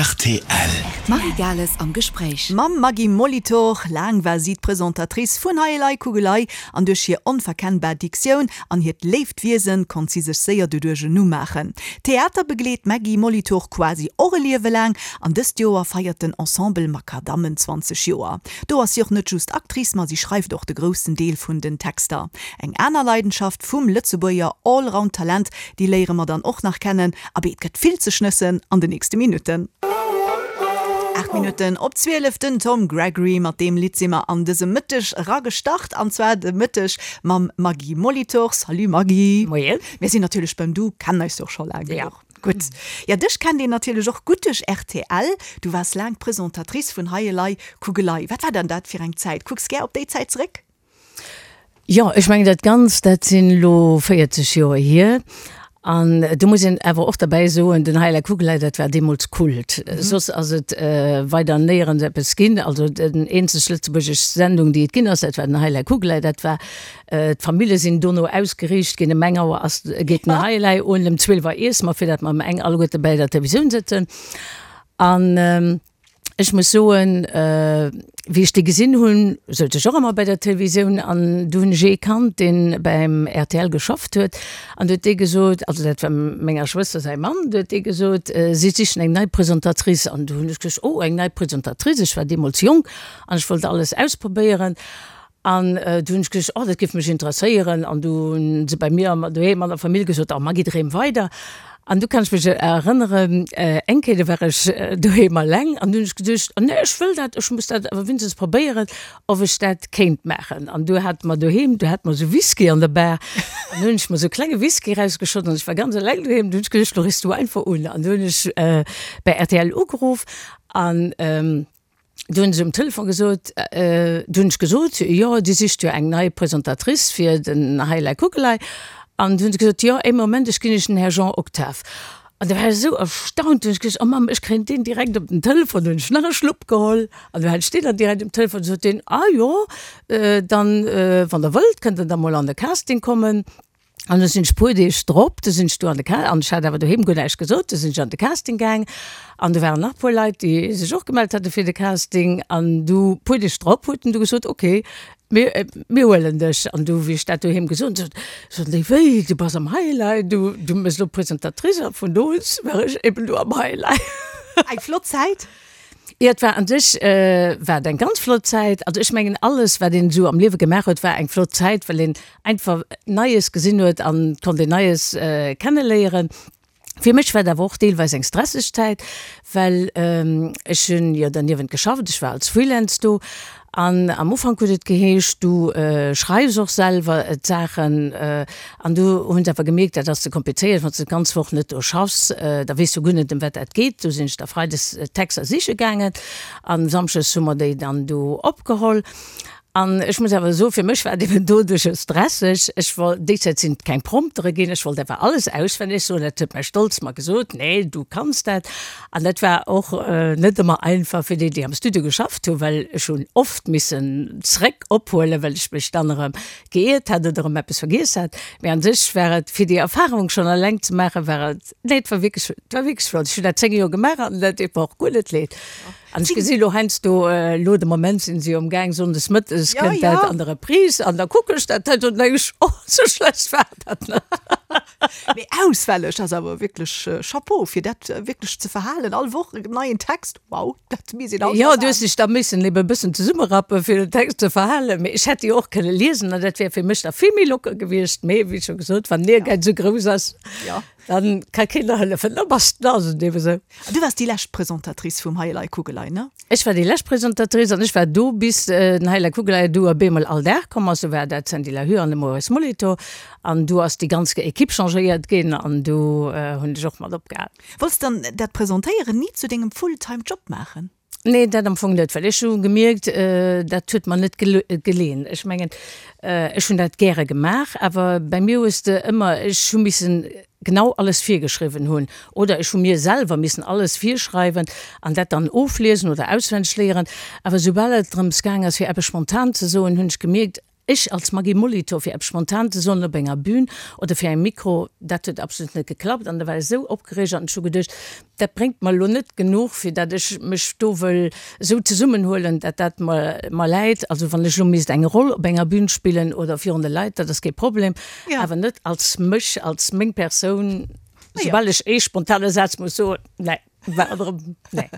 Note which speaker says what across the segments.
Speaker 1: Rtl.
Speaker 2: D'Marie Gales am Gespréich.
Speaker 3: Mam Maggy Molitor. Laang war si d'Presentatrice vun Hei Elei Kugelei an duerch hir onverkennbar Diktioun an hiert léift Wiesen konnt si sech séier doduerch en Numm maachen. Theater begleet d'Maggy Molitor quasi och e Liewe laang an dëst Joer feiert den Ensemble Makadammen 20 Joer. Do ass si och net just Actrice, ma si schreift och de groussen Deel vun den Texter. Eng aner Leidenschaft vum Lëtzebuerger Allround-Talent, déi léiere mer dann och nach kennen. Abee, et gëtt vill ze schnëssen an de nächste Minutten. 8 Minutten op 12, den Tom Gregory. Mat deem Lidd si mer an dëse Mëtteg eragestart, an zwar de Mëtteg mam Maggy Molitor. Salut Maggy.
Speaker 4: Moien.
Speaker 3: Mir sinn natierlech beim Du, kennen eis jo och scho laang
Speaker 4: Ja.
Speaker 3: genuch. Gutt. Ja, dech kennt een natierlech och gutt duerch rtl. Du waars laang Presentatrice vun Hei elei Kugelei. Wat war dann dat fir eng Zäit? Kucks gär op déi Zäit zeréck?
Speaker 4: Jo, ech mengen dat Ganzt, dat sinn elo 40 Joer hier. An do muss een awer och derbäi soen, den Heila Kugelei, dat war deemools Kult. Soss ass et weider néierens eppes ginn. Also den eenzeg lëtzebuergesch Sendung, déi et ginn ass, dat war den Heila Kugelei. Dat war, d'Famille sinn dono ausgeriicht ginn, ëm eng Auer ass, geet den Heilei un, ëm 12 Auer iesse mer, fir dat mer ëm eng alleguerte bäi der Televisioun sëtzen. An Ech muss soen, wéi ech déi gesinn hunn, souz ech och ëmmer bei der Televisioun an du hunn ech ee kannt, dee beim rtl geschafft huet an du huet dee gesot, also dat war menger Schwëster säi Mann, du huet dee gesot, si sichen eng nei Presentatrice an du hunn ech gesot, oh eng nei Presentatrice, ech war deemools jonk an ech wollt alles ausprobéieren An du hunn ech gesot, oh dat géif mech interesséieren. An du hunn se bei mir doheem an der Famill gesot, oh Maggy dreem weider. An du kann ech mech erënneren, eng Kéier do war ech doheem alleng an du hunn ech geduecht, oh nee ech wëll dat, ech muss dat awer wéinstens probéieren, ob ech dat kéint maachen. An du hate mer doheem, du hate mer esou Whisky an der Bar an du hunn ech mer esou e klenge Whisky erausgeschott an ech war ganz eleng doheem. Du hunn ech geduecht, lo riffs du einfach un. An du hunn ech bei rtl ugeruff an. Du hunn se um Telefon gesot, du hunn ech gesot, jo, Dir sicht jo eng nei Presentatrice fir den Heilei Kuckelei. An du hunn se gesot, jo, ee Moment, ech ginn Iech den Här Jean Octave. An da war ech esou erstaunt, du hunn ech gesot, oh Mamm, ech kréien deen direkt op den Telefon. Du hunn ech nach e Schlupp geholl an du hat ech deen dann direkt um Telefon. Du sot deen, ah jo, dann, wann Der wëllt, kënnt Der da mol an de Casting kommen. An du sinn ech puer Deeg drop, du sinn ech do an de Ca an ech hat awer doheem guer näischt gesot, du sinn ech an de Casting gaang an do waren nach puer Leit, déi sech och gemellt hate fir de Casting an du puer Deeg drop huet en du gesot, ok, mir mir huelen dech. An du wéi ech dat doheem gesot hunn, soten déi, wéi, du bass am Highlight, du du méchs elo Presentatrice a vun do un war ech eben do am Highlight.
Speaker 3: Eng flott Zäit.
Speaker 4: Jo, et war an sech war et eng ganz flott Zäit. Also ech mengen alles wat een esou am Liewe gemaach huet, war eng flott Zäit, well een einfach Neies gesinn huet an konnt een Neies kenneléieren. Fir mech war et awer och deelweis eng stresseg Zäit, well ech hunn jo derniewent geschafft, ech war als Freelance do An am Ufank huet et geheescht, du schreifs och selwer d'Saachen. An du hunn se awer gemierkt, dat ass ze komplizéiert, wann s de d'ganz Woch net do schaffs, da weess du guer net, ëm wat dat geet. Du sinn ech da freides d'Texter siche gaangen a samschdes hu mer déi dann do opgeholl. An ech muss awer soen, fir mech war et eben doduercher stresseg. Ech wollt, déi Zäit sinn et keng Promptere ginn, ech wollt awer alles auswenneg soen. Dat huet mäi Stolz mer gesot, Nee, du kanns dat. An dat war och net ëmmer einfach fir déi, déi am Studio geschafft hunn, well ech hunn oft missen zréck ophuelen, well ech mech dann erëm geiert hat oder erëm eppes vergiess hat. Mee an sech war et, fir déi Erfahrung schonn eleng ze maachen, war et, nee, et war wierklech, et war wierklech flott. Ech hunn dat 10 Joer gemaach an dat deet mer och guer net leed. An ech gesi lo heiansdo, elo de Moment sinn se jo am Gaang, sonndes mëttes kënnt dat an der Reprise an da kucken ech dat heiansdo an da denken ech, oh, sou schlecht war dat net.
Speaker 3: Mee auswälleg ass awer wierklech Chapeau fir dat wierklech ze verhalen, all Woch en neien Text, wow, dat misst een alt
Speaker 4: Jo, du hues dech da missen ebe bëssen zesummerappen fir den Text ze verhalen, mee ech hätt déi och kënne liesen an dat wär fir mech da vill méi locker gewiescht. Mee wéi scho gesot, wann den Ehrgäiz esou grouss ass, dann ka keen der hëllefen, da bass de, da ass et ebe sou.
Speaker 3: An du waars déi lescht Presentatrice vum Hei Elei Kugelei, ne?
Speaker 4: Ech war déi lescht Presentatrice an ech war do bis den Hei Elei Kugelei du op eemol all Dag komm ass. Du war dat d'Sandy Lahue an de Maurice Molitor an du ass déi ganz Equipe changéiert ginn an du hunn ech och mat opgehal.
Speaker 3: Wollts dann dat Presentéieren ni zu dengem Full-time Job maachen?
Speaker 4: Nee, dat am Fong net, well ech hu gemierkt, dat huet mer net geleen. Ech mengen, ech hunn dat gäre gemaach, awer bei mir hues de ëmmer, ech hu missen genau alles virgeschriwwen hunn oder ech hu mir selwer missen alles virschreiwen an dat dann ofliesen oder auswenneg léieren. Awer soubal et drëms gaang ass, fir eppes spontan ze soen, hunn ech gemierkt,. Ech als Maggy Molitor, fir eppes spontan ze soen op enger Bühn oder fir engem Mikro, dat huet absolut net geklappt an da war ech esou opgereegt an ech hu geduecht, dat bréngt mer elo net genuch, fir dat ech mech do wëll esou zesummenhuelen, dat dat mer mer läit. Also wann ech elo misst eng Roll op enger Bühn spillen oder virun de Leit, dat ass kee Problem, awer net als mech, als meng Persoun, soubal ech ee spontane Saz muss soen, nee. War erëm,
Speaker 3: nee.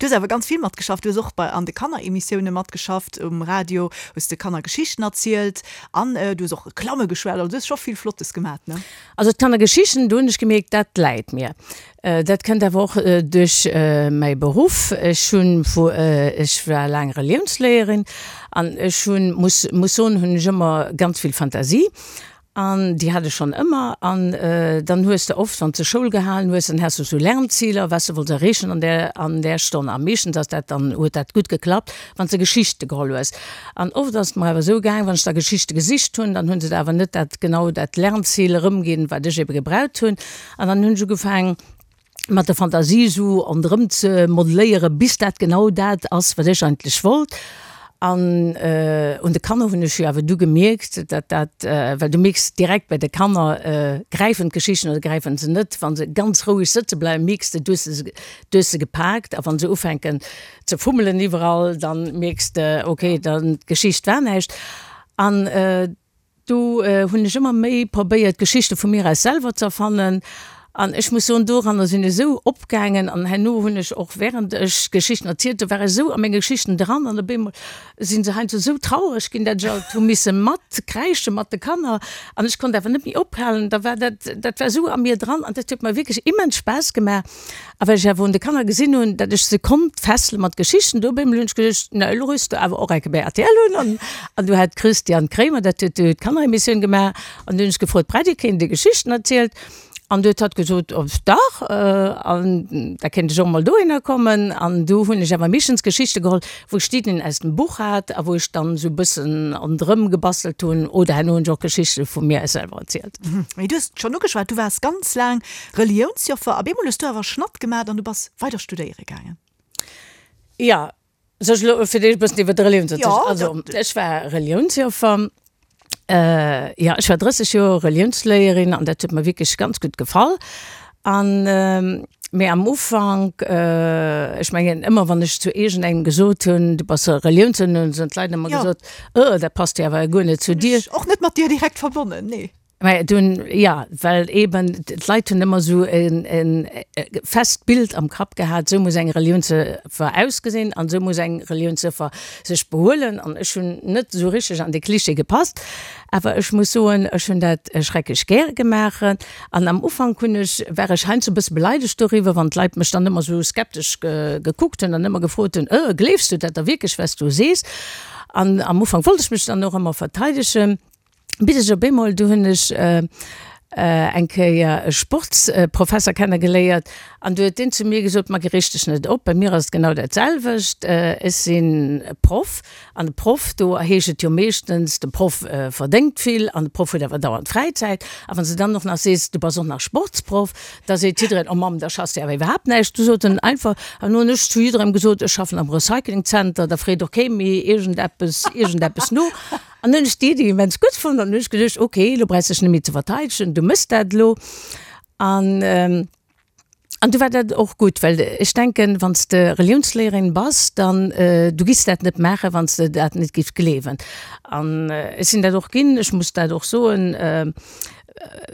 Speaker 3: Du hues awer ganz vill matgeschafft. Du hues och bei an de Kanneremissioune matgeschafft um Radio, hues de Kanner Geschichten erzielt an du hues och Reklamme geschwat. Also du hues scho vill Flottes gemat, ne?
Speaker 4: Also d'Kannergeschichten, do hunn ech gemierkt, dat läit mir. Dat kënnt awer och duerch mäi Beruff. Ech hunn vu, ech war laang Reliounsléierin an ech hunn, muss muss soen, hunn ech ëmmer ganz vill Fantasie An déi hat ech schonn ëmmer. An dann hues de oft, wann s de Schoul gehalen hues, dann has de sou Lernziler, wat s de wollts erreechen an där, an där Stonn. A meeschtens ass dat dann, huet dat gutt geklappt, wann s de Geschichte geholl hues. An oft ass et mer awer esou gaang, wann ech da Geschichte gesicht hunn, dann hu se der awer net dat, genau dat Lernzil erëmginn, wat ech ebe gebraucht hunn. An dann hunn ech ugefaangen, mat der Fantasie esou ronderëm ze modelléieren, bis dat genau dat ass, wat ech eigentlech wollt. An un de Kanner hunn ech jo awer du gemierkt, dat dat, well du mierks direkt bei de Kanner, gräifen d'Geschichten oder gräifen se net. Wa se ganz roueg sëtze bleiwen, mierks de, du hues se, du hues se gepaakt. A wa se ufänken ze fummelen iwwerall, dann mierks de, okay, dann d'Geschicht war näischt. An Do hunn ech ëmmer méi probéiert, Geschichte vu mir aus selwer ze erfannen. An ech muss soen, doranner sinn ech esou opgaangen. An herno hunn ech och, während ech Geschichten erzielt hunn, war ech esou a menge Geschichten dran. An op eemol si se heiansdo esou traureg ginn, dat ech alt hu misse matkräische mat de Kanner. An ech konnt awer net méi ophalen. Da war dat, dat war esou a mir dran an dat huet mer wierklech immens Spaass gemaach. A well ech awer un de Kanner gesinn hunn, datt ech se konnt fessele mat Geschichten, do op eemol hunn ech geduecht, na elo rüss de awer och eng Kéier bei rtl un. An, an du hat d'Christiane Kremer, dat huet du d'Kanneremissioun gemaach, an du hunn ech gefrot, Brett, Dir kéint Dir Geschichten erzielt? An du huet hatt gesot, oh dach, an da kéint ech och emol dohinner kommen. An du hunn ech awer meeschtens Geschichte geholl, wou ech d'Iddien aus dem Buch hat a wou ech dann esou e bëssen ronderëm gebastelt hunn, oder herno hunn ech och Geschichte vu mir aus selwer erzielt.
Speaker 3: Mee du hues et schonn ugeschwat, du waars ganz laang Reliounsjoffer, op eemol hues du awer Schnatt gemat an du bass weider studéiere gaangen.
Speaker 4: Jo, soll ech elo fir d'éischt e bëssen iwwer d'Reliounsjoffer? Jo, also ech war Reliounsjoffer, jo ech war 30 Joer Reliounsléierin an dat huet mer wierklech ganz gutt gefall. An mee am Ufank, ech mengen ëmmer wann ech zu iergendengem gesot hunn, du bass Reliounsjoffer, hunn d'Leit ëmmer gesot, oh dat passt jo awer guer net zu dir.
Speaker 3: Och net mat dir direkt verbonnen, nee.
Speaker 4: Mä dunn, jo, well eben d'Leit hunn ëmmer esou e fest Bild am Kapp gehat, esou muss eng Reliounsjoffer ausgesinn an esou muss eng Reliounsjoffer sech behuelen. An ech hunn net esou richteg an dee Klischee gepasst. Awer ech muss soen, ech hunn dat schrecklech gäre gemaach. An am Ufank hunn ech, war ech heiansdo e bësse beleidegt doriwwer, wann d'Leit mech dann ëmmer esou skeptesch gekuckt hunn an ëmmer gefrot hunn, Äh, gleefs du dat da wierklech, wat s du sees? An am Ufank wollt ech mech dann och ëmmer verteidegen. Bis ech op eemol, du hunn ech eng Kéier e Sportsprofesser kennegeléiert an du huet deen zu mir gesot, Maggy reeg dech net op, bei mir ass et genau dat selwecht, ech sinn Proff an e Proff, do heescht et jo meeschtens, de Proff verdéngt vill an de Proff huet awer dauernd Fräizäit a wann s de dann och nach sees, du bass och nach Sportsproff, da seet jiddereen, oh Mamm, da schaffs de awer iwwerhaapt näischt. Du sot en einfach, an hunn ech zu jidderengem gesot, ech schaffen am Recyclingzenter, da freet och kee méi iergendeppes, iergendeppes no. An hunn ech déi Iddi immens gutt fonnt an hunn ech geduecht, ok, elo brauchs dech net méi ze verteidegen, du mëss dat elo. An an du war dat och gutt, well ech denken, wann s de Reliounsléierin bass, dann du giffs dat net maachen, wann s de dat net giffs gleewen. An ech sinn dat och ginn, ech muss dat och soen,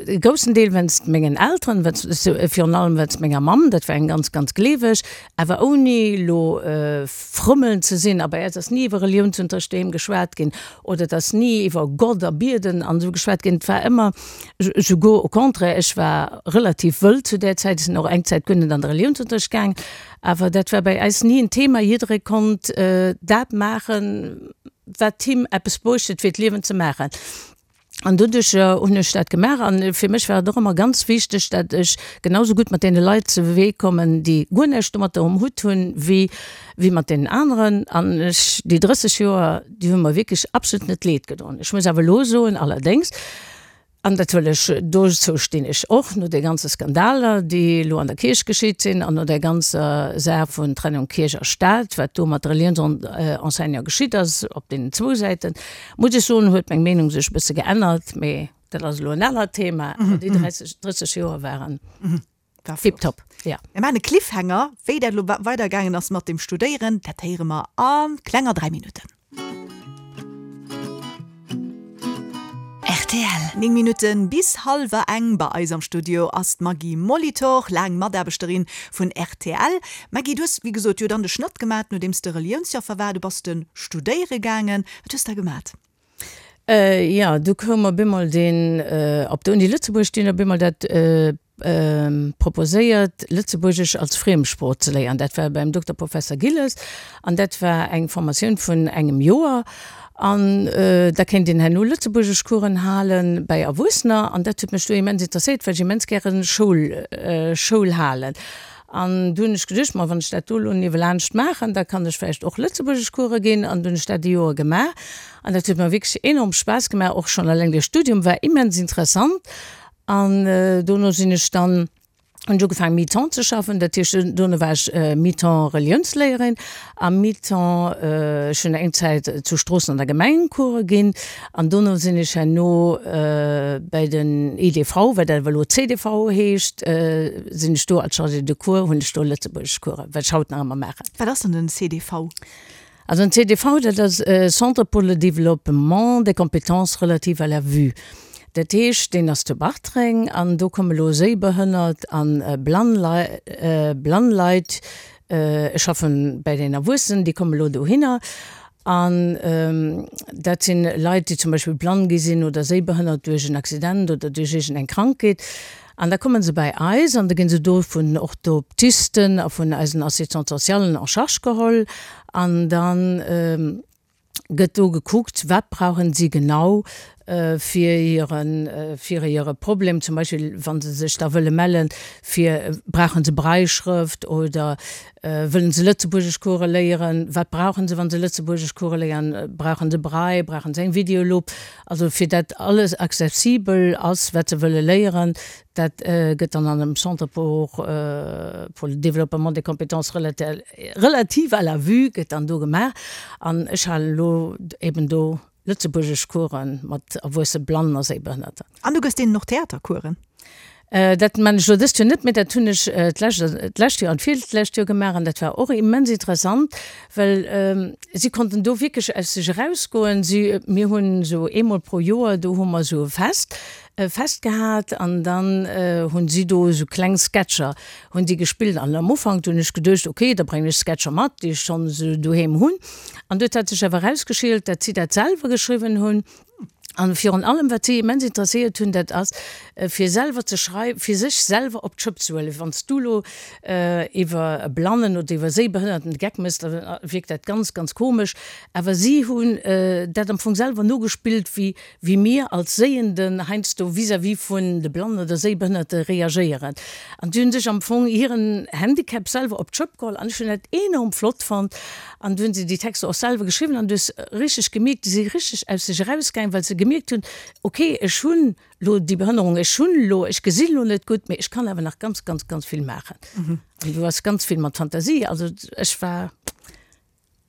Speaker 4: E groussen Deel wéinst mengen Elteren, virun allem wéinst menger Mamm, dat war eng ganz, ganz gleeweg, awer ouni elo frëmmeln ze sinn. A bei eis ass ni iwwer Reliounsunterricht doheem geschwat ginn oder et ass ni iwwer Gott a Bieden an esou geschwat ginn. Et war ëmmer, souguer au contraire, ech war relativ wëll zu där Zäit, ech sinn och eng Zäit guer net an de Reliounsunterricht gaang, awer dat war bei eis ni en Thema. Jidderee konnt dat maachen, wat him eppes bruecht huet, fir d'Liewen ze maachen. An doduercher hunn ech dat gemaach. An fir mech war et och ëmmer ganz wichteg, dat ech genau sou gutt mat deene Leit ze Wee kommen, déi guer näischt domatter um Hutt hunn, wéi, wéi mat deenen aneren. An ech, déi 30 Joer, déi hu mer wierklech absolut net leed gedoen. Ech muss awer elo soen, allerdéngs. An dat wëll ech, dozou stinn ech och, no de ganze Skandaler, déi elo an der Kierch geschitt sinn an no där ganzer Saach vun Trennung Kierch a Staat, wat do mat de Reliounsenseignanten geschitt ass, op deenen zwou Säiten, muss ech soen, huet meng Meenung sech e bësse geännert. Mee dat ass elo en anert Thema. Awer déi 30, 30 Joer waren tiptop,
Speaker 3: jo. Mir maachen e Cliffhanger, wéi dat elo weidergaangen ass mat dem Studéieren, dat héiere mer a klenger 3 Minutten.
Speaker 2: Rtl.
Speaker 3: 9 Minutten bis hallwer eng. Bei eis am Studio ass d'Maggy Molitor, laang Mataarbechterin vun rtl. Maggy, du hues wéi gesot jo dann de Schnëtt gemat, nodeems de Reliounsjoffer war. Du bass de studéiere gaangen. Wat hues de da gemat?
Speaker 4: Jo, du koum op eemol deen, op der Uni Lëtzebuerg, déi hunn op eemol dat proposéiert, Lëtzebuergesch als Friemsprooch ze léieren. Dat war beim Dokter Professer Gilles an dat war eng Formatioun vun engem Joer. An da kéint een herno Lëtzebuergeschcoursen hale bäi Erwuessener. An dat huet mech du immens interesséiert, well ech immens gäre Schoul, Schoul halen. An du hunn ech geduecht, ma wann ech dat do elo niewelaanscht maachen, da kann ech vläicht och Lëtzebuergeschcourse ginn. An du hunn ech dat e Joer gemaach. An dat huet mer wierklech enorm Spaass gemaach. Och schonn eleng de Studium war immens interessant. An dono sinn ech dann, hunn ech ugefaangen mi-temps ze schaffen, dat heescht dono war ech mi-temps Reliounsléierin a mi-temps, ech hunn eng Zäit zu Stroossen an der Gemeng Course ginn an dono sinn ech herno bäi den IDV, wat awer elo CDV heescht, sinn ech do als Chargée de cours, hunn ech do Lëtzebuergeschcoursen, wat ech haut nach ëmmer maachen.
Speaker 3: Wat ass dann den CDV?
Speaker 4: Also den CDV, dat ass Centre pour le développement des compétences relatives à la vue. Dat heescht, deen ass zu Bartreng an do komme lo Séibehënnert a blann blann Leit, ech schaffe bäi den Erwuessenen, déi komme lo dohinner. An dat si Leit, déi zum Beispill blann gi sinn oder séibehënnert duerch en Accident oder duerch iergendeng Krankheet. An da komme se bäi eis an da gi se do vun Orthoptisten a vun eisen Assistants socialen en charge geholl an da gëtt do gekuckt, wat brauchen si genau fir hiren, fir hire Problem, zum Beispill wa se sech da wëlle mellen, fir brauchen se Brailleschrëft oder wëllen se Lëtzebuergeschcourse léieren, wat brauchen se, wa se Lëtzebuergeschcourse léieren, brauchen se Braille, brauchen se eng Videolupp, Also fir dat alles accessibel ass, wat se wëlle léieren, dat gëtt dann an dem Centre pour pour le développement des compétences relatives à la vue gëtt dann do gemaach. An ech halen elo eben do Lëtzebuergeschcoursen mat erwuesse Blannen a Séibehënnerten.
Speaker 3: An du gëss deenen och Theatercoursen?
Speaker 4: Dat man ech elo dëst Joer net méi, dat hunn ech d'lescht Joer an d'virlescht Joer gemaach an dat war och immens interessant, well si konnten do wierklech aus sech erausgoen. Si, mir hunn esou eemol pro Joer, do hu mer esou e Fest, e Fest gehat an dann hunn si do esou kleng Sketcher hunn si gespillt an am Ufank do hunn ech geduecht, okay, da bréngen ech Sketcher mat, déi ech schonn esou doheem hunn an do huet sech awer erausgeschielt, dat si dat selwer geschriwwen hunn. An virun allem, wat si immens interesséiert hunn, dat ass, fir selwer ze schrei-, fir sech selwer op d'Schëpp ze huelen. Wann s du elo iwwer e Blannen oder iwwer e Séibehënnerten de Geck méchs, da wierkt dat ganz, ganz komesch. Awer si hunn dat am Fong selwer nogespillt, wéi, wéi mir als Séienden heiansdo vis-à-vis vun de Blannen oder Séibehënnerte reagéieren. An si hunn sech am Fong hiren Handicap selwer op d'Schëpp geholl. An ech hunn dat enorm flott fonnt. An du hunn se déi Texter och selwer geschriwwen an du hues richteg gemierkt, déi si richteg aus sech erausgaangen, well se gemierkt hunn, okay, ech hunn elo déi Behënnerung, ech hunn elo, ech gesinn elo net gutt, mee ech kann awer nach ganz, ganz, ganz vill maachen. An du ass ganz vill mat Fantasie, also ech war.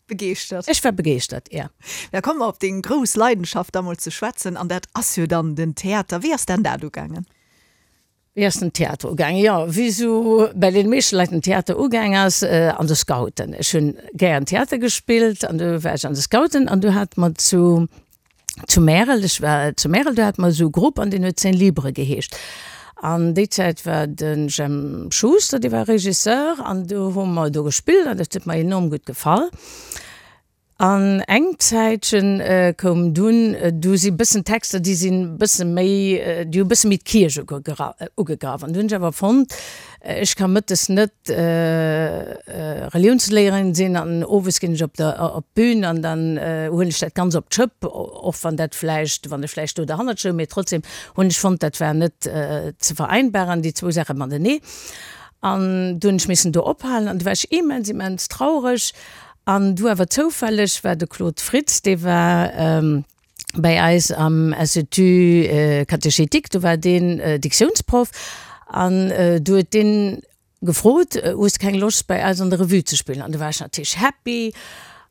Speaker 3: Begeeschtert.
Speaker 4: Ech war begeeschtert, ja.
Speaker 3: Da komme mer op deng grouss Leidenschaft da mol ze schwätzen an dat ass jo dann den Theater. Wéi ass dann dat ugaangen?
Speaker 4: Wéi ass den Theater ugaangen? Jo, wéi esou bäi deene meeschte Leit den Theater ugaang ass, an de Scouten. Ech hunn gären Theater gespillt an du war ech an de Scouten an du hate mer zu zu Märel, ech war zu Märel, do hate mer esou e Grupp an deen huet Scène Libre geheescht. An déi Zäit war de Jemp Schuster, dee war Regisseur an du hu mer do gespillt an dat huet mer enorm gutt gefall. An eng Zäitchen koum dunn, du si bëssen Texter, déi sinn bësse méi, déi hu bësse méi d'Kierch ugegraff. An du hunn ech awer fonnt, ech ka mëttes net Reliounsléierin sinn an owes ginn ech op der op d'Bün an dann huelen ech dat Ganz op d'Schëpp, och wann dat vläicht, wann ech vläicht do derhannert stoung, mee trotzdem hunn ech fonnt, dat war net ze vereinbaren, déi zwou Saache matenee. An du hunn ech missen do ophalen an du war ech immens, immens traureg. An du awer zoufälleg war de Claude Fritz, dee war. Bäi eis am Institut catéchétique, do war deen Diktiounsproff an du huet deen gefrot, Hues de keng Loscht bäi eis an der Revue ze spillen? An du war ech natierlech happy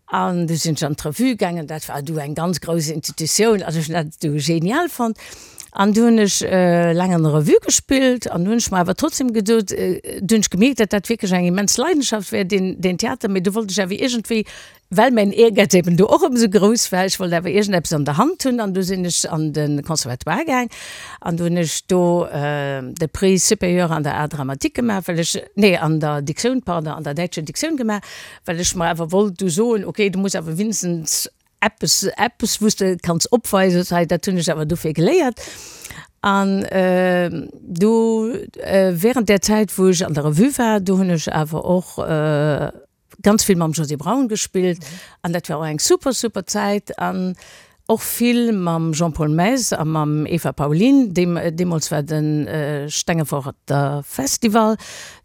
Speaker 4: an du sinn ech an d'Revue gaangen. Dat war du eng ganz grouss Institutioun, also ech hunn dat du genial fonnt. An du hunn ech laang an der Revue gespillt an du hunn ech mer awer trotzdem gesot, du hunn ech gemierkt, datt dat wierklech eng immens Leidenschaft wär, deen deen Theater, mee du wollt ech awer iergendwéi Well mäin Ehrgäiz eben do och ëmsou grouss war, ech wollt awer iergendeppes an der Hand hunn an du sinn ech an de Conservatoire gaang an du hunn ech do de Prix supérieur an der Art dramatique gemaach, well ech, nee an der Diktioun, pardon, an der däitscher Diktioun gemaach, well ech mer awer wollt du soen, okay, du muss awer winstens eppes, eppes wou s de kanns opweisen, hei dat hunn ech awer dofir geléiert. An du während där Zäit wou ech an der Revue war, do hunn ech awer och ganz vill mam Josy Braun gespillt an dat war och eng super super Zäit an och vill mam Jean-Paul Maes a mam Eva Paulin. Deemools war de Stengeforter Festival,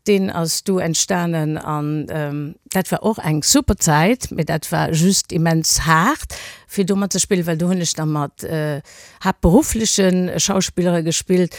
Speaker 4: deen ass du entstanen an dat war och eng super Zäit, mee dat war just immens haart fir do mat ze spillen, well do hunn ech da mat haaptberuffleche Schauspillere gespillt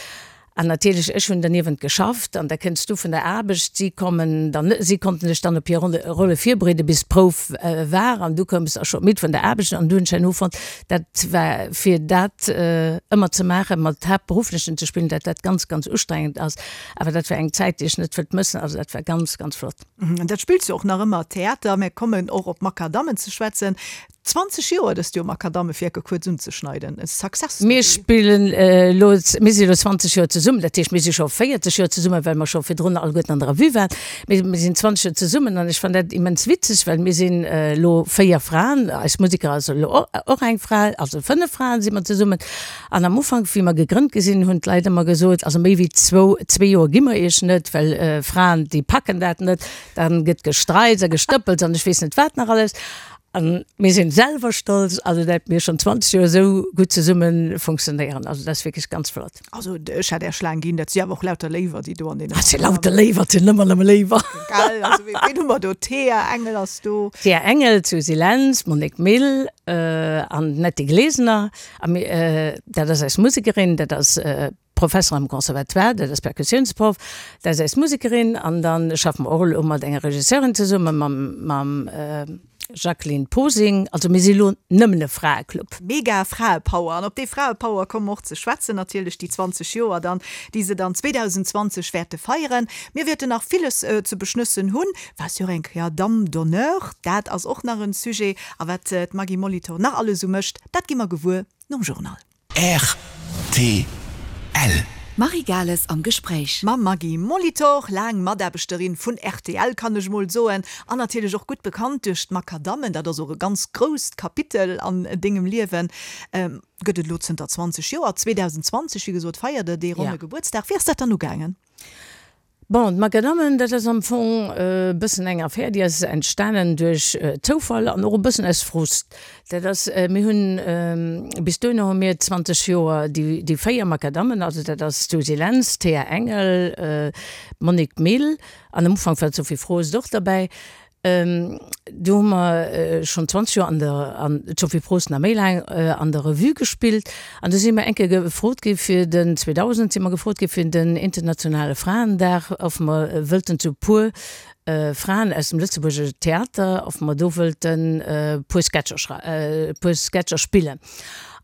Speaker 4: An natierlech, ech hunn derniewent geschafft an da kënns du vun der Aarbecht, si kommen dann, si konnten sech dann op hir Rolle virbereeden, bis d'Prouf war an du koums da scho midd vun der Aarbecht an du hunn ech herno fonnt, dat war fir dat ëmmer ze maachen, mat Haaptberufflechen ze spillen, dat dat ganz, ganz ustrengend ass. Awer dat war eng Zäit, déi ech net wëllt mëssen, also dat war ganz, ganz flott.
Speaker 3: An dat spills du och nach ëmmer Theater. Mir kommen och op d'Makadammen ze schwätzen. 20 Joer dëst Joer Makadammewerke kuerz unzeschneiden, e Success Story.
Speaker 4: Mir spillen elo, mir si elo 20 Joer zesummen, dat heescht mir si scho 40 Joer zesummen, well mer scho virdrun alleguerten an der Revue waren, mee mir sinn 20 Joer zesummen an ech fannen dat immens witzeg, well mir sinn elo 4 Fraen, eis Museker ass elo och eng Fra, also 5 Fraen si mer zesummen an am Ufank wéi mer gegrënnt gi sinn, hunn d'Leit ëmmer gesot, also méi wéi zwou, zwee Joer gi mer iech net, well Fraen déi packen dat net, dann gëtt gestreits a gestëppels an ech weess net wat nach alles. An mir sinn selwer stolz, also dat mir schon 20 Joer esou gutt zesumme funktionéieren. Also dat ass wierklech ganz flott.
Speaker 3: Also ech hätt Är Schlaang ginn, dat si awer och lauter Léiwer, déi do an deene.
Speaker 4: Dat si lauter Léiwer, dat sinn ëmmer nëmme Léiwer.
Speaker 3: Gell, also ween hu mer do? D'Thea Engel ass do.
Speaker 4: D'Thea Engel, d'Susy Lentz, d'Monique Mille an d'Netty Glesener. A mir, dat ass eis Musekerin, dat ass Professer am Conservatoire, dat ass Perkussiounsproff, dat ass eis Musekerin an dann schaffe mer och elo mat enger Regisseurin zesummen, mam mam Jacqueline Posing. Also mir si elo nëmmen e Fraeclub.
Speaker 3: Mega Fraepower an op dee Fraepower komme mer och ze schwätzen natierlech, déi 20 Joer dann, déi se dann 2020 wäerte feieren. Mir wäerten nach villes ze beschnëssen hunn. Waars jo och eng Kéier Dame d'honneur, dat ass och nach en Sujet. A wat d'Maggy Molitor nach alles esou mécht, dat gi mer gewuer nom Journal.
Speaker 2: Rtl. D'Marie Gales am Gespréich.
Speaker 3: Mam Maggy Molitor, laang Mataarbechterin vun rtl, kann ech mol soen, an natierlech och gutt bekannt duerch d'Makadammen, dat ass och e ganz grousst Kapitel an dengem Liewen, gëtt et elo zënter 20 Joer. 2020, wéi gesot, feiert der dee ronne Gebuertsdag. Wéi ass dat dann ugaangen?
Speaker 4: Bon, d'Makadammen, dat ass am Fong e bëssen eng Affär, déi ass entstanen duerch Zoufall an och e bëssen aus Frust. Dat ass, mir hunn, bis dohinner hu mir 20 Joer déi, déi 4 Makadammen, also dat ass d'Suzy Lentz, d'Théa Engel, d'Monique Mille an am Ufank war d'Sophie Frost och derbäi, Do hu mer schonn 20 Joer an der, an d'Sophie Prost nach méi laang, an der Revue gespillt. An du si mer eng Kéier gefrot gi fir den, 2000 si mer gefrot gi fir den internationale Fraendag, ob mer wëllten zu e puer Fraen aus dem Lëtzebuerger Theater, ob mer do wëllten e puer Sketcher schrei, e puer Sketcher spillen.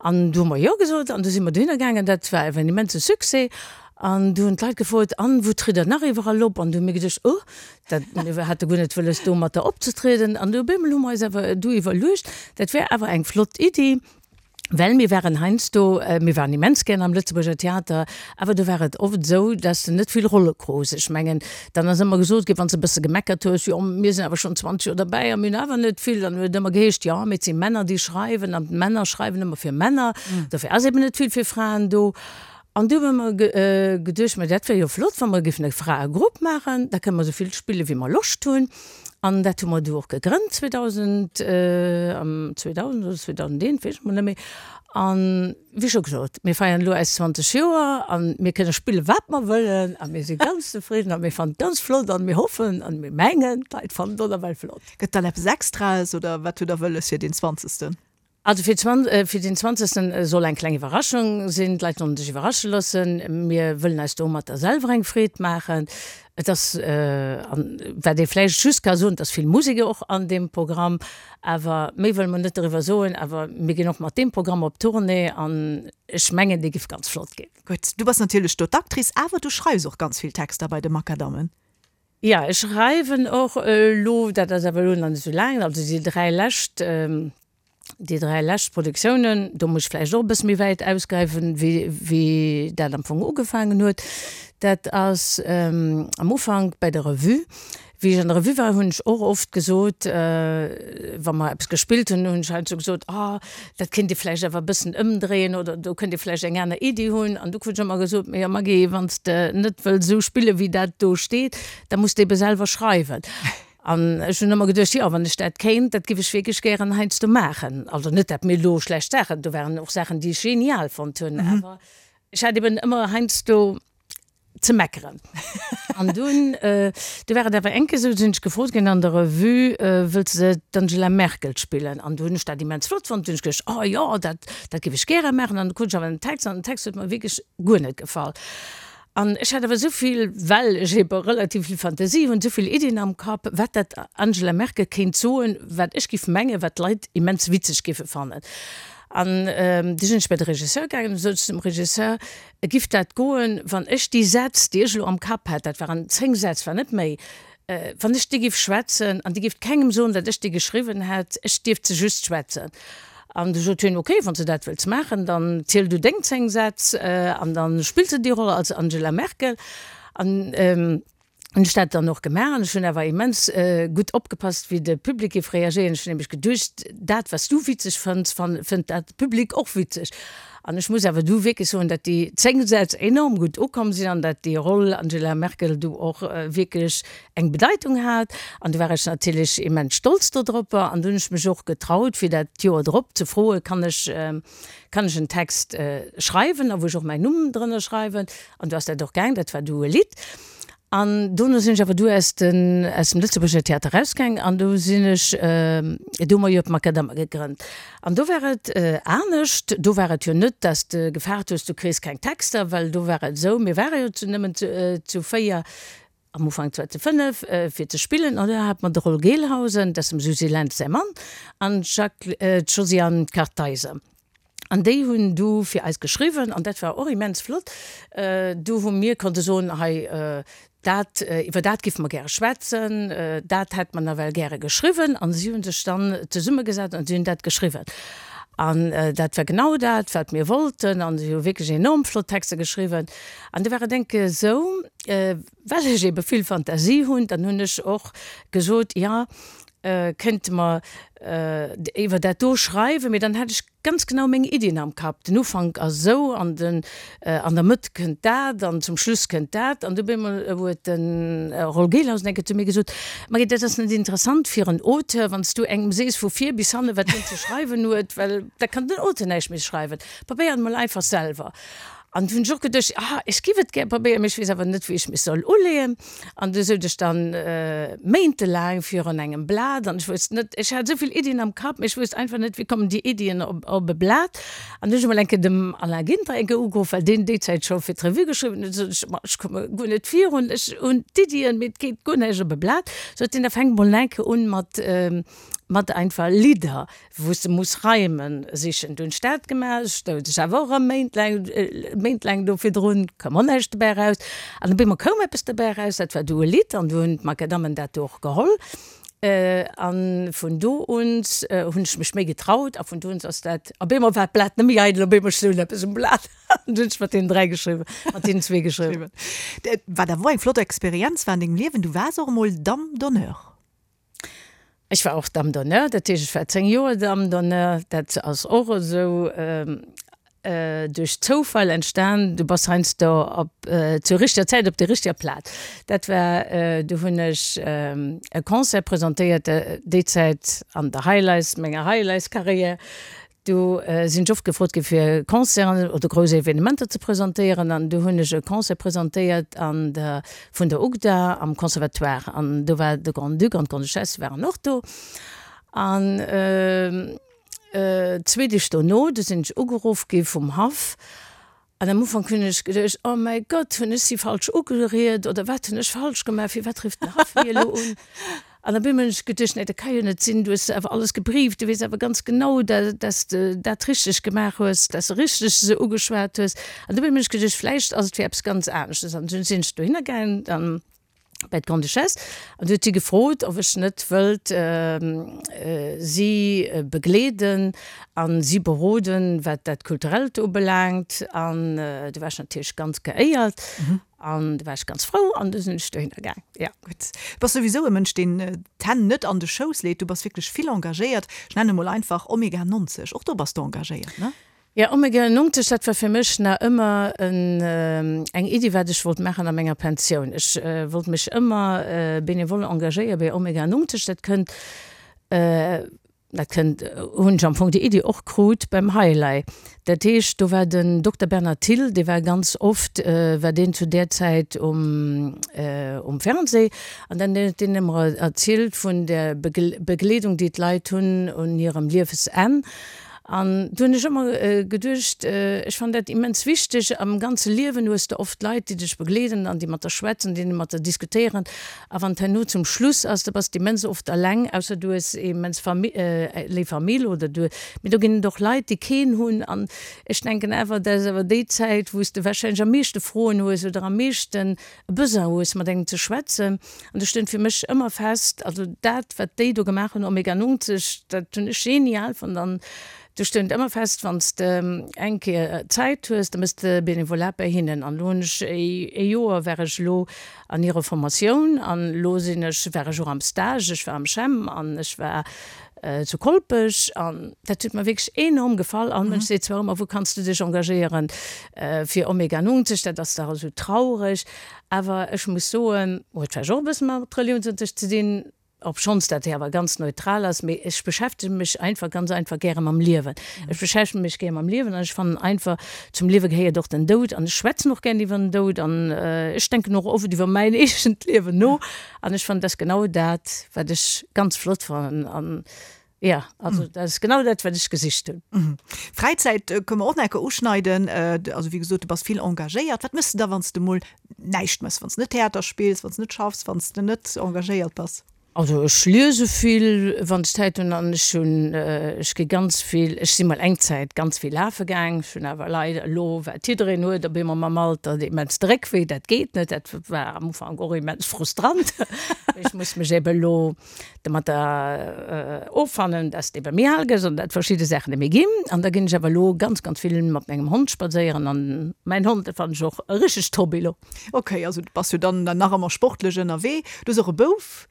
Speaker 4: An du hu mer jo gesot an du si mer dohinner gaangen. Dat war awer en immense Succès. An du hunn d'Leit gefrot, An, wou tritt Der nach iwwerall op? An du hu mir geduecht, Oh, Dat, mir hate guer net wëlles domatter opzetrieden an du op eemol hu mer eis awer du iwwerluecht, dat wär awer eng flott Iddi, well mir waren heiansdo, mir waren immens gären am Lëtzebuerger Theater, awer do war et oft esou, dass de net vill Rolle krus. Ech mengen, dann ass ëmmer gesot ginn, wann s de e bësse gemeckert hues, jo mir sinn awer schonn 20 Joer derbäi a mir hunn awer net vill, dann huet et ëmmer geheescht, jo mee et si Männer déi schreiwen an d'Männer schreiwen ëmmer fir Männer, dofir ass eben net vill fir Fraen do. An du hu mer geduecht, ma dat wär jo flott, wa mer géifen e Fraegrupp maachen, da kënne mer esou vill spille wéi mer Loscht hunn. An dat hu mer du och gegrënnt 2000, am 2000 oder 2001, weess ech mol net méi. An wéi scho gesot, mir feiern elo eis 20 Joer a mir kënne spille wat mer wëllen a mir si ganz zefridden a mir fannen et ganz flott an mir hoffen an mir mengen, d'Leit fannen et och nawell flott.
Speaker 3: Gëtt dann eppes Extraes oder wat hutt Der wëlles fir deen zwanzegsten?
Speaker 4: Also fir fir den zwanzegsten soll eng kleng Iwwerraschung sinn. D'Leit sollen sech iwwerrasche loossen. Mir wëllen eis domatter selwer eng Freed maachen. Et ass, an wat ee vläicht just ka soen, et ass vill Musek och an deem Programm, awer méi wëlle mer net doriwwer soen. Awer mir ginn och mat deem Programm op Tournée an ech mengen, dee giff ganz flott ginn.
Speaker 3: Gutt, du bass natierlech do d'Actrice, awer du schreifs och ganz vill Texter bei de Makadammen.
Speaker 4: Jo, ech schreiwen och elo, dat ass awer elo nach net esou laang, also déi 3 lescht, déi 3 lescht Produktiounen, do muss ech vläicht och e bësse méi wäit ausgräifen, wéi, wéi dat am Fong ugefaangen huet. Dat ass am Ufank bei der Revue. Wéi ech an der Revue war, hunn ech och oft gesot, wa mer eppes gespillt hunn, hunn ech heiansdo gesot, oh, dat kéint ee vläicht awer e bëssen ëmdréien oder do kënnt ee vläicht eng aner Iddi hunn. An du krut ech ëmmer gesot, Mee jo Maggy, wann s de net wëlls esou spillen, wéi dat do steet, da muss de ebe selwer schreiwen. An ech hunn ëmmer geduecht, jo, wann ech dat kéint, dat giff ech wierklech gären heiansdo maachen. Also net, dat mir elo schlecht Saachen, do waren och Saachen, déi ech genial fonnt hunn, awer ech hat eben ëmmer heiansdo ze meckeren. An dunn, du war et awer eng Kéier esou, du sinn ech gefrot ginn an der Revue, Wëlls de d'Angela Merkel spillen? An du hunn ech dat immens flott fonnt. Du hunn ech geduecht, Oh jo, dat, dat géif ech gäre maachen. An du krut ech awer den Text an den Text huet mer wierklech guer net gefall. An ech hat awer esou vill, well ech ebe relativ vill Fantasie hunn, esou vill Iddien am Kapp, wat dat Angela Merkel kéint soen, wat ech géif mengen, wat d'Leit immens witzeg géife fannen. An du sinn ech bei de Regisseur gaangen an du sot ech zum Regisseur, Giff dat goen, wann ech déi Sätz, déi ech elo am Kapp hat, dat waren 10 Sätz, war net méi, wann ech déi giff schwätzen an Dir gifft kengem soen, datt ech déi geschriwwen hätt, ech dierft se just schwätzen? An du sot hien, ok, wann s de dat wëlls maachen, dann ziel du deng 10 Sätz an da spills de déi Roll als Angela Merkel. An hunn ech dat dann och gemaach an ech hunn awer immens gutt opgepasst, wéi de Public géif reagéieren. Ech hunn nämlech geduecht, dat wat s du witzeg fënns, fënnt dat Public och witzeg. An ech muss awer du wierklech soen, datt déi 10 Sätz enorm gutt ukomm sinn an datt déi Roll Angela Merkel du och wierklech eng Bedeitung hat. An du war ech natierlech immens stolz dodropper an du hunn ech mech och getraut, fir dat d'Joer drop ze froen, kann ech, kann ech en Text schreiwen a wou ech och mäin Numm drënner schreiwen. An du ass dat och gaang, dat war du e Lidd. An dono sinn ech awer du aus den, aus dem Lëtzebuerger Theater erausgaang an do sinn ech, do hu mer jo d'Makadammer gegrënnt. An do war et anescht, do war et jo net, dass de gefaart hues, du kriss keng Texter, well do war et esou, mir ware jo zu nëmmen zu, zu 4, am Ufank zwar zu 5, fir ze spillen, an do hat mer de Roll Gelhausen, dat ass dem Susy Lentz säi Mann, an d'Jacques, d'Josiane Kartheiser. An déi hunn du fir eis geschriwwen an dat war och immens flott. Du hu mir konnte soen, hei dat, iwwer dat giffe mer gäre schwätzen, dat hätt mer nawell gäre geschriwwen. An si hu sech dann zesummegesat an si hunn dat geschriwwen. An dat war genau dat, wat mir wollten. An si hu wierklech enorm flott Texter geschriwwen. An du war et enke esou, well ech ebe vill Fantasie hunn, dann hunn ech och gesot, jo, Kéinte mer iwwer dat do schreiwen, mee dann hätt ech ganz genau meng Iddien am Kapp. Den Ufank ass esou an den an der Mëtt kënnt dat an zum Schluss kënnt dat. An du op eemol huet de Roll Gelhausen eng Kéier zu mir gesot, Marie, dat ass net interessant fir en Auteur, wann s du engem sees vu vir bis hanne wat hien ze schreiwen huet, well da kann den Auteur näischt méi schreiwen. Probéier et mol einfach selwer. An du hunn ech och geduecht, ah, ech giff et gär probéieren, mee ech weess awer net, wéi ech mech soll uleeën. An du souz ech dann méintelaang virun engem Blat an ech wousst net, ech hat esou vill Iddien am Kapp, mee ech wousst einfach net, wéi kommen déi Iddien op op e Blat. An du hunn ech emol eng Kéier dem Alain Ginter eng Kéier ugeruff, well deen déi Zäit scho fir d'Revue geschriwwen huet, sot ech, ma ech komme guer net virun, ech hunn d'Iddien, mee et geet guer näischt op e Blat. Sot hien, da fänk mol eng Kéier un mat mat einfach Lidder. wou s de muss Reimen sichen. Du hunn ech dat gemaach, ech stoung sech awer och erëm méintlaang, méintlaang do virdrun, koum och näischt dobäi eraus. An op eemol koum eppes dobäi eraus, dat war du e Lidd an du hunn d'Makadammen dat do och geholl. A vun do un hunn ech mech méi getraut a vun do un ass dat, op eemol war d'Blat net méi eidel, op eemol stoung eppes um Blat an du hunn ech mat deenen 3 geschriwwen, mat deenen zwee geschriwwen.
Speaker 3: Wat awer och eng flott Experienz war an dengem Liewen, du waars och emol Dame d'honneur.
Speaker 4: Ech war och Dame d'honneur, dat heescht ech war 10 Joer Dame d'honneur. Dat ass och esou duerch Zoufall entstan. Du bass heiansdo op zur richteger Zäit op der richteger Plaz. Dat war, du hunn ech e Concert presentéiert, déi Zäit an der Highlights, menger Highlights-Carrière. Do sinn ech oft gefrot gi fir Concerten oder grouss Evenementer ze presentéieren an do hunn ech e Concert presentéiert an der vun der UGDA am Conservatoire an do war de Grand-Duc an d'Grande-Duchesse waren och do an. Zwee Deeg dono, du sinn ech ugeruff gi vum Haff. An am Ufank hunn ech geduecht, Oh mäi Gott, hunn ech si falsch ugeriet oder wat hunn ech falsch gemaach, firwat rifft den Haff mir elo un? An op eemol hunn ech geduecht, Nee, dat ka jo net sinn, du hues awer alles gebrieft, du weess awer ganz genau, dass de dat richteg gemaach hues, dass de richteg se ugeschwat hues. An dobäi hunn ech geduecht, vläicht ass et fir eppes ganz aneschtes. An dunn sinn ech dohinner gaangen an bei d'Grande-Duchesse an du huet si gefrot, ob ech net wëllt si begleeden a si beroden, wat dat Kulturellt ubelaangt. An du war ech natierlech ganz geéiert an du war ech ganz frou an du sinn ech dohinner gaang, jo.
Speaker 3: Gutt. Du bass souwisou e Mënsch, deen d'Hänn net an de Schouss leet. Du bass wierklech vill engagéiert. Ech nenne mol einfach Omega 90. Och do bass de engagéiert, ne?
Speaker 4: Jo, Omega 90, dat war fir mech nach ëmmer eng Iddi, wat ech wollt maachen a menger Pensioun. Ech wollt mech ëmmer benevole engagéiere bei Omega 90. Dat kënnt, dat kënnt, hunn ech am Fong déi Iddi och krut beim Highlight. Dat heescht, do war den Dokter Bernard Thill, dee war ganz oft, war deen zu där Zäit um, um Fernseh an dann huet deen ëmmer erzielt vun der Begleedung, déi d'Leit hunn un hirem Liewesenn. An do hunn ech ëmmer geduecht, ech fannen dat immens wichteg. Am ganze Liewen hues de oft Leit, déi dech begleeden an déi mat der schwätzen, déi mat der diskutéieren. A wann et herno zum Schluss ass, da bass de immens oft eleng, ausser du hues immens léif Famill oder du, mee do ginn et och Leit, déi keen hunn. An ech denken awer, dat ass awer déi Zäit, wou s de warscheinlech am meeschte Froen hues oder am meeschten e Besoin hues, mat engem ze schwätzen. An do stoung fir mech ëmmer fest, also dat, wat déi do gemaach hunn, Omega 90, dat hunn ech genial fonnt. An do stoung ëmmer fest, wann s de eng Kéier Zäit hues, da méchs de Benevolat bei hinnen. An elo hunn ech ee Joer war ech elo an hirer Formatioun an elo sinn ech, war ech och am Stage, ech war am CHEM an ech war zu Kolpech an dat huet mer wierklech enorm gefall. All Mënsch seet zwar ëmmer, wou kanns du dech engagéieren fir Omega 90, dat ass dach esou traureg. Awer ech muss soen, huet vläicht och e bësse mat Reliounsunterricht ze dinn, obschonns dat hei awer ganz neutral ass, mee ech beschäftege mech einfach ganz einfach gäre mam Liewen. Ech beschäftege mech gär mam Liewen an ech fannen einfach, zum Liewe gehéiert och den Doud an ech schwätzen och gären iwwer den Doud an ech denken och oft iwwer mäin eegent Liewen no. An ech fannen, dat ass genau dat, wat ech ganz flott fannen. An jo, also dat ass genau dat, wat ech gesicht hunn.
Speaker 3: Fräizäit kënne mer och nach eng Kéier uschneiden. Also wéi gesot, du bass vill engagéiert. Wat méchs de da, wann s de mol näischt méchs, wann s de net Theater spills, wann s de net schaffs, wann s de net engagéiert bass?
Speaker 4: Also ech liese vill, wann ech Zäit hunn. An ech hunn, ech gi ganz vill, ech si mol eng Zäit ganz vill lafe gaang. Ech hunn awer leider elo, wat jiddereen huet, op eemol mam Alter, de immens de Réckwéi. Dat geet net. Dat war am Ufank och immens frustrant. Ech muss mech ebe elo domatter offannen, dass de ebe méi al gëss an dat verschidde Saachen net méi ginn. An da ginn ech awer elo ganz, ganz vill mat mengem Hond spadséieren. An mäin Hond, dat fannen ech och e richtegt Hobby elo.
Speaker 3: Ok, also du bass jo dann nach ëmmer sportlech ënnerwee. Du hues och e Bouf?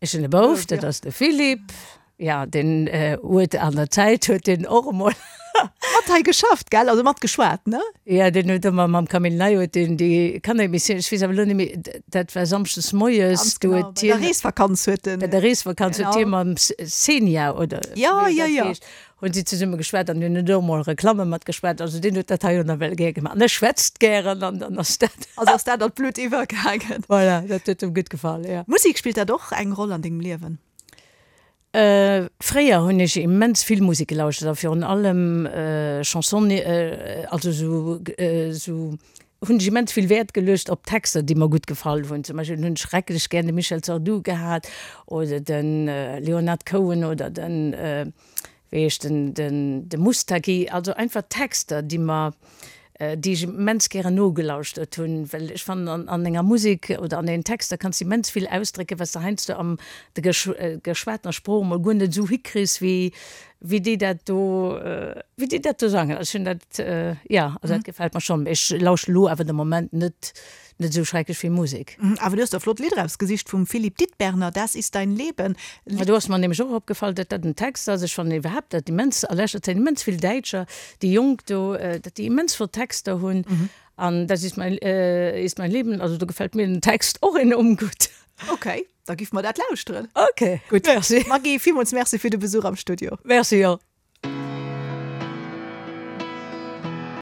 Speaker 4: Ech hunn e Bouf, dat ass de Philippe. Jo, deen huet an der Zäit huet deen och emol.
Speaker 3: Mat hei geschafft, gell? Also mat geschwat, ne?
Speaker 4: Jo, deen huet ëmmer mam Camille Ney huet deen déi Kanneremissioun, ech weess awer elo net méi, dat war samschdes moies,
Speaker 3: Ganz do huet hien. Bei der Reesvakanz huet
Speaker 4: en. Bei der Reesvakanz huet hie mam Xenia, oder
Speaker 3: wéi dat heescht.
Speaker 4: Hunn si zesumme geschwat an hunn och mol Reklamme mat geschwat. Also deen huet dat hei jo nawell gär gemaach. An e schwätzt gären an dann ass dat.
Speaker 3: Also ass dat an d'Blutt iwwergaangen.
Speaker 4: Voilà, dat huet em gutt gefall, jo.
Speaker 3: Musek, spillt dat och eng Roll an dengem Liewen?
Speaker 4: Fréier hunn ech immens vill Musek gelauschtert a virun allem Chanson, also esou esou hunn ech immens vill Wäert geluecht op Texter, déi mer gutt gefall hunn. Zum Beispill hunn ech schrecklech gär de Michel Sardou gehat oder de Leonard Cohen oder den, wéi heescht en, den de Moustaki. Also einfach Texter, déi mer, déi ech immens gären nogelauschtert hunn, well ech fannen an an enger Musek oder an den Texter kanns de immens vill ausdrécken, wat s de heiansdo am der geschwatener Sprooch emol guer net esou hikriss wéi Wéi déi dat do, wéi déi dat do sangen, ech hunn dat, jo, also dat gefält mer schonn. Mee ech lauschten elo awer de Moment net, net esou schrecklech vill Musek.
Speaker 3: Awer du hues der flott Lidder ausgesicht vum Philippe Dittberner, Das ist dein Leben.
Speaker 4: Ma do ass mer nämlech och opgefall, datt dat en Text ass. Ech fannen iwwerhaapt dat immens, a leschter Zäit immens vill Däitscher, déi Jonk do, datt déi immens flott Texter hunn. An Das ist mein, ist mein Leben, also do gefält mir den Text och enorm gutt.
Speaker 3: Ok, da giff mer dat lauschteren.
Speaker 4: Ok,
Speaker 3: gutt. Merci. Maggy, villmools Merci fir de Besuch am Studio.
Speaker 4: Merci och.